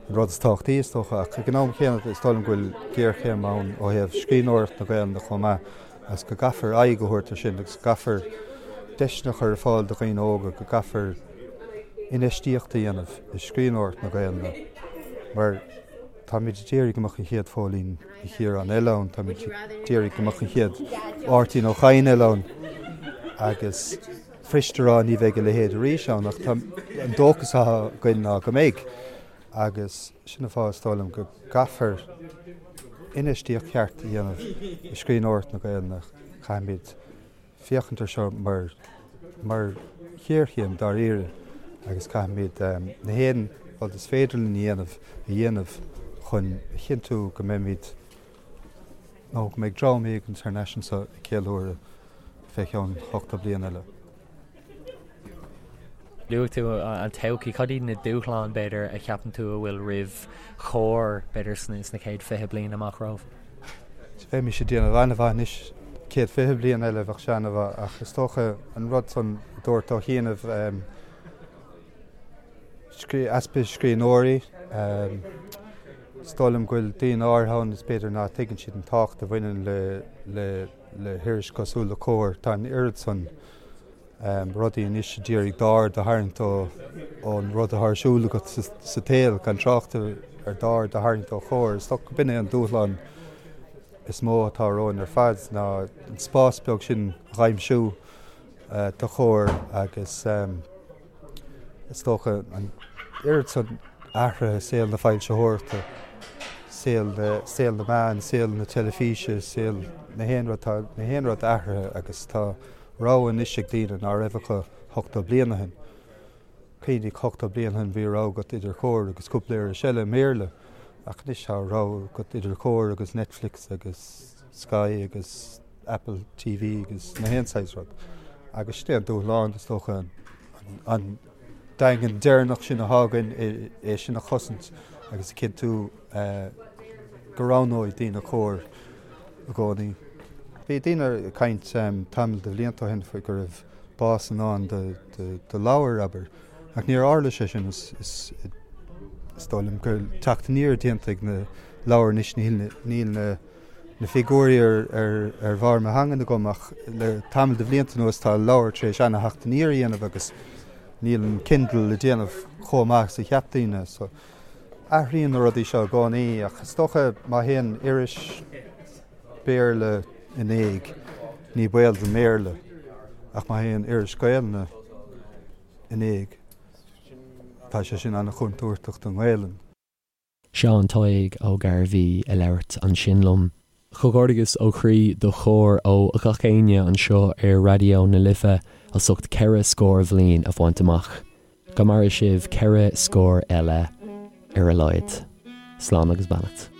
Speaker 12: an rud is tábhachtaí is dócha, ach ag an am chéanna is dóigh liom go bhfuil géarchéim ann ó thaobh scríbhneoireacht na Gaelainne chomh maith agus go gcaithfear aghaidh a thabhairt ar sin agus go gcaithfear deiseanna a chur ar fáil do dhaoine óga, go gcaithfear infheistíocht a dhéanamh i scríbhneoireacht na Gaelainne mar táimid ag iarraidh go mbeadh an chéad Phóilín Ní Chiaráin eile ann, táimid ag iarraidh go mbeadh an chéad Mháirtín Ó Cadhain eile ann agus fuirist a rá ní bheidh a leithéid arís ann ach tá an dóchas atá againn ná go mbeidh agus sin an fáth is dóigh liom go gcaithfear infheistíocht cheart a dhéanamh i scríbhneoireacht na Gaelainne. Caithfimid féachaint ar seo mar mar ghéarchéim dáiríre agus caithfimid na haon rud is féidir linn a dhéanamh a dhéanamh chun a chinntiú go mbeimid nó go mbeidh dream éigin thar n-ais anseo ag ceiliúradh fé cheann 80 bliain eile.
Speaker 1: Luaigh tú an todhchaí. Cad iad na dúshláin, b'fhéidir, a cheapann tú a bhfuil roimh Chomhar, b'fhéidir, sna chéad 20 bliain amach romhaibh?
Speaker 12: Bheimis ag déanamh an-mhaith anois, chéad 20 bliain eile bheadh sé an-mhaith ach is dócha an rud san a dúirt ó chianaibh, easpa scríbhneoirí, is dóigh liom go bhfuil daoine áirithe ann is b'fhéidir ná tuigeann siad an tábhacht a bhaineann le le hiris cosúil le Comhar. Tá an oiread san rudaí anois a d'iarraidh d'aird a tharraingt ón rud atá ar siúl agat sa tsaol, gan trácht ar d'aird a tharraingt ó Chomhar. Is dócha go b'in é an dúshlán is mó atá romhainn ar fad ná an spás beag sin a dh'aimsiú do Chomhar agus Is dócha an oiread san athraithe i saol na foilsitheoireachta, saol na, saol na meán, saol na teilifíse, saol na haon rud, tá na haon rud athraithe agus tá rogha anois ag daoine ná raibh acu 80 bliain ó shin. Cuimhnigh 80 bliain ó shin bhí rogha agat idir Comhar agus cúpla iris eile i mBéarla ach anois tá rogha agat idir Comhar agus Netflix agus Sky agus Apple TV agus na haon saghas rud. Agus sin é an dúshlán, is dócha, an daingean deireanach sin atá againn, é sin a chosaint agus a chinntiú go roghnóidh daoine Comhar i gcónaí. Bhí daoine ag caint tamall de bhlianta ó shin faoi go raibh bás i ndán do leabhair, abair, ach níor tharla sé sin. Is dóigh liom go bhfuil teacht aniar déanta ag na leabhair anois, níl na na figiúirí ar bharr mo theangan agam ach le tamall de bhlianta anuas tá leabhair tar éis ana-theacht aniar a dhéanamh agus níl an Kindle ag déanamh chomh maith is a cheap daoine. So athraíonn na rudaí seo i gcónaí ach is dócha má théann iris Béarla in éag ní baol don mBéarla ach má théann iris Gaelainne in éag tá sé sin ana-chontúirteach don nGaelainn.
Speaker 1: Seán Tadhg Ó Gairbhí ag labhairt ansin liom. Comhghairdeas ó chroí do Chomhar ó gach éinne anseo ar Raidió na Life as ucht 4 scór bhliain a bhaint amach. Go maire sibh 4 scór eile ar a laghad. Slán agus beannacht.